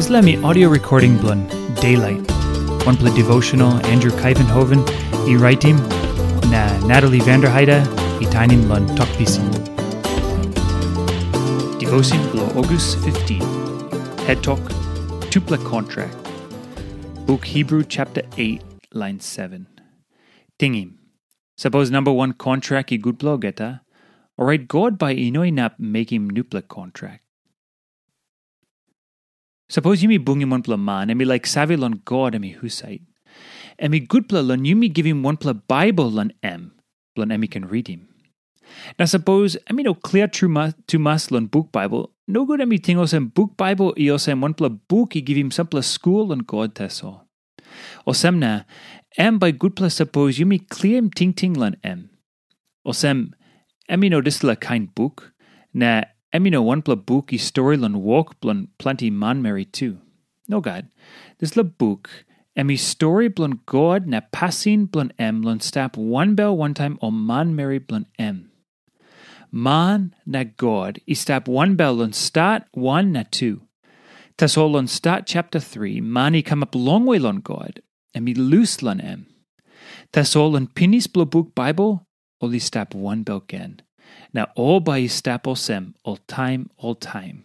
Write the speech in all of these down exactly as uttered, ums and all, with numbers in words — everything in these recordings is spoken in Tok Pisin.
Dispela mi audio recording bilong Daylight, wanpela devotional Andrew Kaivenhoven i raitim, na Natalie Vanderheide i tainim long Tok Pisin. Devotion bilong August fifteen. Het tok, tupela kontrak. Buk Hebrew chapter eight, line seven. Tingim, sapos namba wan kontrak i gutpela olgeta, orait God bai i no inap mekim nupela kontrak. Sapos yumi bungim wanpela man em i laik save long God em i husat, em i gutpela long yumi givim wanpela Baibel long em, bilong em i ken ritim. Na sapos em i no klia tumas long buk Baibel, nogut em i ting olsem buk Baibel i olsem wanpela buk i givim sampela skul long God tasol. Olsem na, em bai gutpela sapos yumi kliaim tingting long em. Olsem, em i no dispela kain buk, na em i no wanpela buk i stori long wok bilong planti manmeri tu. Nogat, dispela buk em i stori bilong God na pasin bilong em long stap wanbel wantaim ol manmeri bilong em. Man na God i stap wanbel long stat wan na tu. Tasol long stat chapter three, man i kamap longwe long God, em i lus long em. Tasol long pinis bilong buk Baibel, ol i stap wanbel gen, na ol bai i stap olsem oltaim oltaim.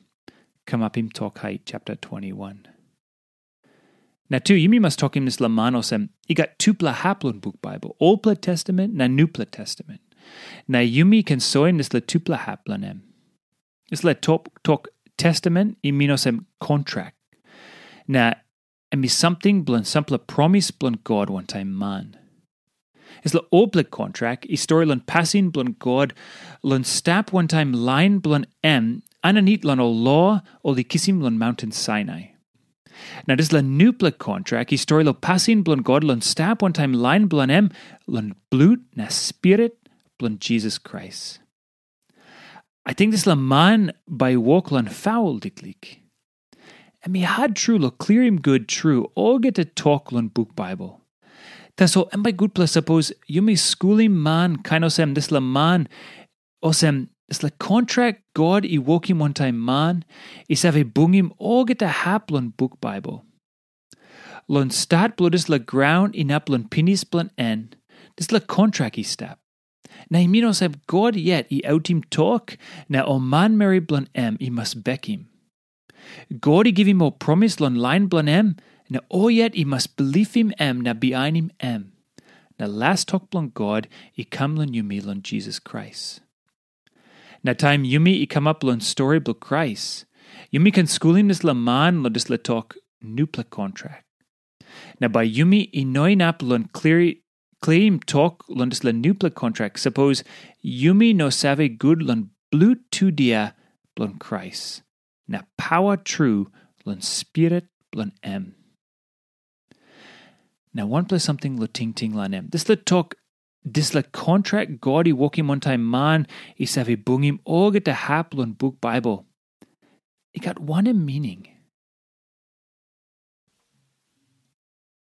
Kamapim Tok Hait chapter twenty-one. Na tu yumi mas tokim dispela man olsem, i gat tupela hap long buk Baibel, Olpela Testament na Nupela Testament. Na yumi ken soim dispela tupela hap long em. Dispela tok, tok testament i min olsem kontrak. Na em i samting bilong sampela promis bilong God wantaim man. Dispela olpela kontrak i stori long pasin bilong God long stap wantaim lain bilong em aninit long ol lo ol i kisim long maunten Sinai. Na dispela nupela kontrak i stori long pasin bilong God long stap wantaim lain bilong em long blut na spirit bilong Jisas Krais. Ating dispela man bai i wok long faul liklik. Em i hat tru long klirim gut tru olgeta tok long buk Baibel. Tasol em bai gutpela sapos yumi skulim man kain olsem dispela man, olsem dispela kontrak God i wokim wantaim man i save bungim olgeta hap long buk Baibel. Long stat bilong dispela graun inap long pinis bilong en, dispela kontrak i stap. Na i min olsem God yet i autim tok, na ol manmeri bilong em i mas bekim. God i givim ol promis long lain bilong em, na ol yet i mas bilipim em na bihainim em. Na las tok bilong God i kam long yumi long Jisas Krais. Na taim yumi i kamap long stori bilong Krais, yumi ken skulim dispela man long dispela tok nupela kontrak. Na bai yumi i no inap long klirim tok long dispela nupela kontrak sapos yumi no save gut long blut tudia bilong Krais, na pawa tru long spirit bilong em. Na wanpela samting long tingting long em. Dispela tok, dispela kontrak God i wokim wantaim man i save bungim olgeta hap long buk Baibel, i gat wanem mining?